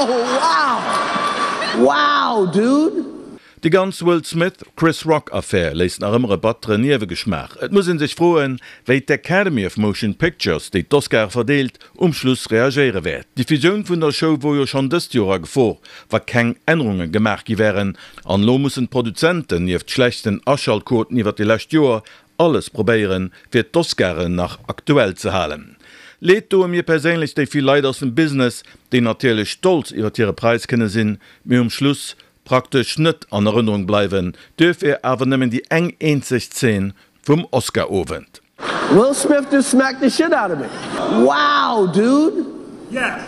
Oh wow! Wow dude! Déi ganz Will Smith, Chris Rock Affär léisst nach ëmmer e batteren Niewegeschmaach. Et muss een sech froen, wéi d'Academy of Motion Pictures, déi d'Oscare verdeelt, um Schluss reagéiere wäert. D'Diffusioun vun der Show wor jo schonn dëst Joer a Gefor, wa keng Ännerunge gemaach gi wären. An elo mussen d'Produzenten, nieft schlechten Aschaltquoten iwwer déi lescht Joer, alles probéieren, fir d'Oscaren nach aktuell ze halen. Leed doe mir perséinlech déi vill Leit aus dem Business, déi natierlech stolz iwwert hire Präis kënne sinn, mee um Schluss praktesch net an Erënnerung bleiwen, duerfir awer nëmmen déi eng eenzeg Zeen vum Oscar-Owend. Will Smith just smacked the shit out of me. Wow dude!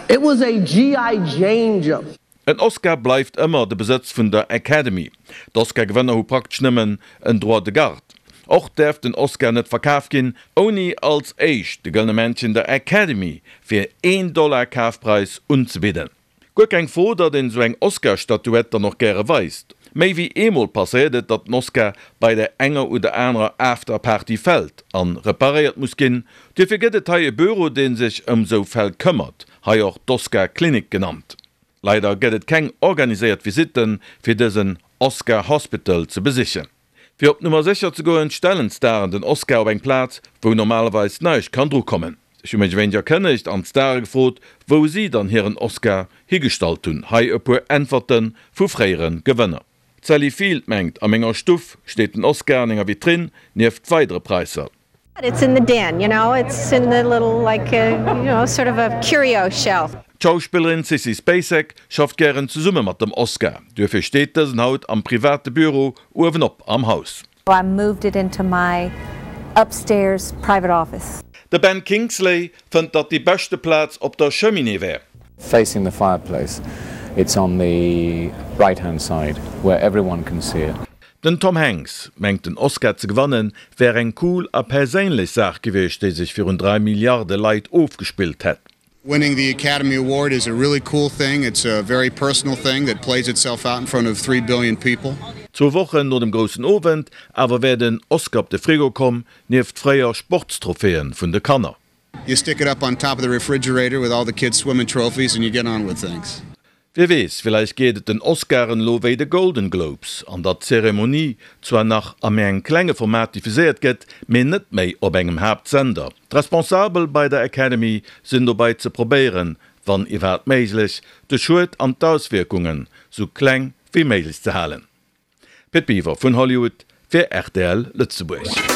It was a GI Jane joke. En Oscar bleift ëmmer de Besëtz vun der Academy. D'Oscar-Gewënner hu praktesch nëmmen en Droit de garde. Och däerf den Oscar net verkaf ginn, ouni als éischt de Gëllene Männchen der Academy fir een Dollar Kafpreis unzebidden. Guer keng Fro, datt een esou eng Oscar-Statuett dann och gäre weist. Méi wéi eemol passéiert et, datt den Oscar bei der enger oder anerer After-Party fält an reparéiert muss ginn. Duerfir gëtt et hei e Büro, dee sech ëm sou Fäll këmmert, hei och d'Oscar-Klinik genannt. Leider gëtt et keng organiséiert Visitten, fir dësen Oscar Hospital ze besichen. Fir op Nummer sécher ze goen, stellen d'Staren den Oscar op eng Plaz, wou normalerweis näischt kann dru kommen. Ech hu mech e wéineg erkënnegt an d'Stare gefrot, wou si dann hiren Oscar higestallt hunn. Hei e puer Äntwerte vu fréiere Gewënner. D'Sally Field mengt, A menger Stuff steet den Oscar an enger Vitrinn, nieft weidere Praisser. It's in the den, you know, it's in the little like you know sort of a curio shelf. D'Schauspillerin Sissy Spacek schafft gären zesumme mat dem Oscar, duerfir steet dësen haut am private Büro uewenop am Haus. I moved it into my upstairs private office. De Ben Kingsley fënnt, datt déi beschte Plaz op der Cheminée wär. Facing the fireplace, it's on the right hand side where everyone can see it. Den Tom Hanks mengt den Oscar ze gewannen wär eng cool a perséinlech Saach gewiescht déi sech virun 3 Milliarde Leit ofgespillt hätt. Winning the Academy Award is a really cool thing, it's a very personal thing that plays itself out in front of 3 billion people. Zwou Wochen no dem groussen Owend awer wär den Oscar op de Frigo komm, nieft fréier Sportstrophäen vun de Kanner. You stick it up on top of the refrigerator with all the kids swimming trophies and you get on with things. Wie weess, villäicht geet et den Oscaren elo wéi de Golden Globes, an datt d'Zeremonie zwar nach a méi engem klenge Format diffuséiert gëtt, mee net méi op engem Haaptsender. D'Responsabel bei der Academy sinn dobei ze probéieren, wann iwwerhaapt méiglech, de Schued an d'Auswierkungen sou kleng wéi méiglech ze halen. Pit Biwer vun Hollywood fir rtl Lëtzebuerg.